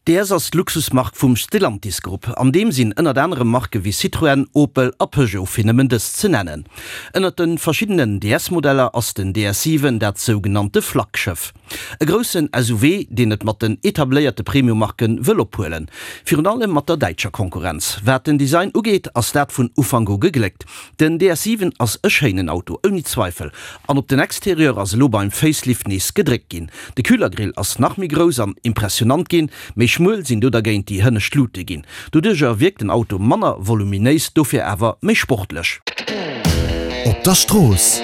DS ass d'Luxusmark vum Stellantis Grupp. An deem sinn ënnert anerem Marke wéi Citroën, Opel a Peugeot, fir nëmmen dës ze nennen. Ënnert de verschiddenen DS-Modeller ass den DS 7 dat sougenannte Flaggschëff. E groussen SUV, deen et mat den etabléierte Premium-Marke wëll ophuelen. Virun allem mat der däitscher Konkurrenz. Wat den Design ugeet, ass dat vun Ufank u gegléckt. Den DS 7 ass e schéinen Auto, ouni Zweifel. An op den Exterieur ass elo beim Facelift nees gedréckt ginn. De Kühlergrill ass nach méi grouss an impressionant ginn, méi schmuel sinn do dergéint déi hënnescht Lute ginn. Doduercher wierkt den Auto manner voluminéis, dofir awer méi sportlech. Op der Strooss.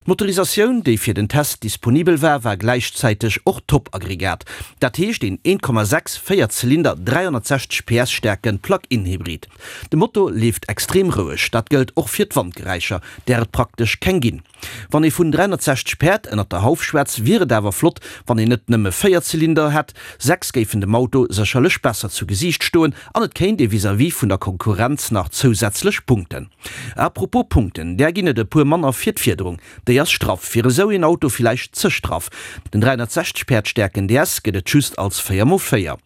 D'Motorisatioun, déi fir den Test disponibel war, war gläichzäiteg och Top-Aggregat. Dat heescht een 1,6 Véierzylinder 360 PS staarke Plug-in-Hybrid. De Motor leeft extrem roueg, dat gëllt och fir d'Wandgeräischer, där et praktesch keng ginn. Wann ee vun 360 Päerd ënnert der Hauf schwätz, wier et awer flott, wann een net nëmme 4 Zylinder hätt. 6 géifen dem Auto sécherlech besser zu Gesiicht stoen an et kéint ee vis-à-vis vun der Konkurrenz nach zousätzlech punkten. A propos Punkten, där ginn et e puer manner fir d'Fiederung. Déi ass straff, fir esou een Auto villäicht ze straff. Den 360 Päerd staarken DS gëtt et just als 4 x 4.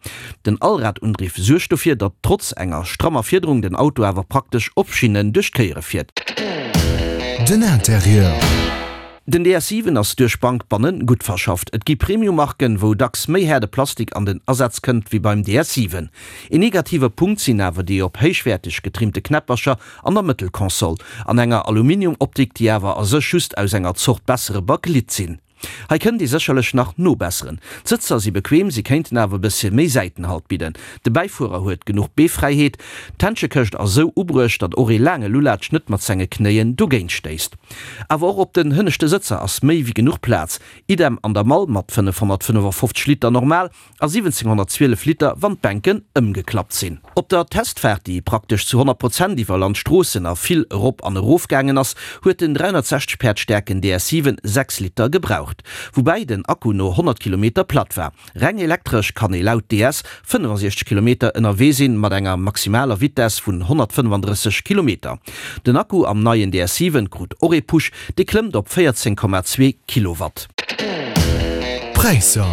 Den Allradundriff suergt dofir, datt trotz enger strammer Fiederung den Auto awer praktesch op Schinnen duerch d'Kéiere fiert. Den Interieur. Den DS 7 ass duerch Bank bannen gutt verschafft. Et gi Premium-Marken, wou dacks méi haarde Plastik an den Asaz kënnt wéi beim DS 7. Een negative Punkt sinn awer déi op héichwäerteg getrimmte Knäppercher an der Mëttelkonsol, an enger Aluminium-Optik, déi awer a sech just aus enger Zort bessere Bakelit sinn. Hei kënnt ee sécherlech nach nobesseren. D'Sëtzer si bequem, si kéinten awer e bëssche méi Säitenhalt bidden. De Bäifuerer huet genuch Beefräiheet. D'Händschekëscht ass esou ubruecht, datt och ee laange Lulatsch net mat senge Knéien dogéint stéisst. Awer och op den hënneschte Sëtzer ass méi wéi genuch Plaz. Idem an der Mall mat 555 Liter normal a 1712 Liter wann d'Bänken ëmgeklappt sinn. Op der Testfaart, déi praktesch zu 100 Prozent iwwer Landstroossen a vill erop an erof gaangen ass, huet den 360 Päerd staarken DS 7 6 Liter gebraucht, woubäi den Akku no 100 Kilometer platt war. Reng elektresch kann ee laut DS 65 Kilometer ënnerwee sinn, mat enger maximaler Vitess vun 135 Kilometer. Den Akku am neien DS 7 krut och ee Push, dee klëmmt op 14,2 Kilowatt. Präisser.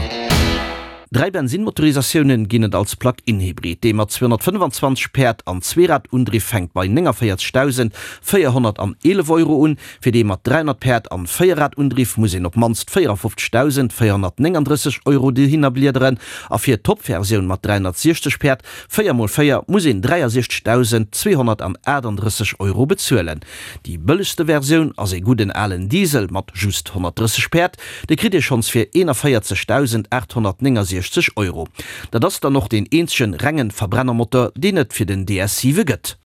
3 Bensinnmotorisatiounen ginn et als Plug-in-Hybrid. Dee mat 225 Päerd an Zweeradundriff fänkt bei 49.411 Euro un. Fir dee mat 300 Päerd an Véierradundriff muss een op d'mannst 54.439 Euro dohinner bliederen. A fir d'Top-Versioun mat 360 Päerd, 4 mol 4, muss een 63.238 Euro bezuelen. Déi bëllegste Versioun ass ee gudden alen Diesel mat just 130 Päerd, dee kritt ee schonns fir 41.869 Euro. Dat ass dann och deen eenzegen rengen Verbrennermotor, deen et fir den DS 7 gëtt.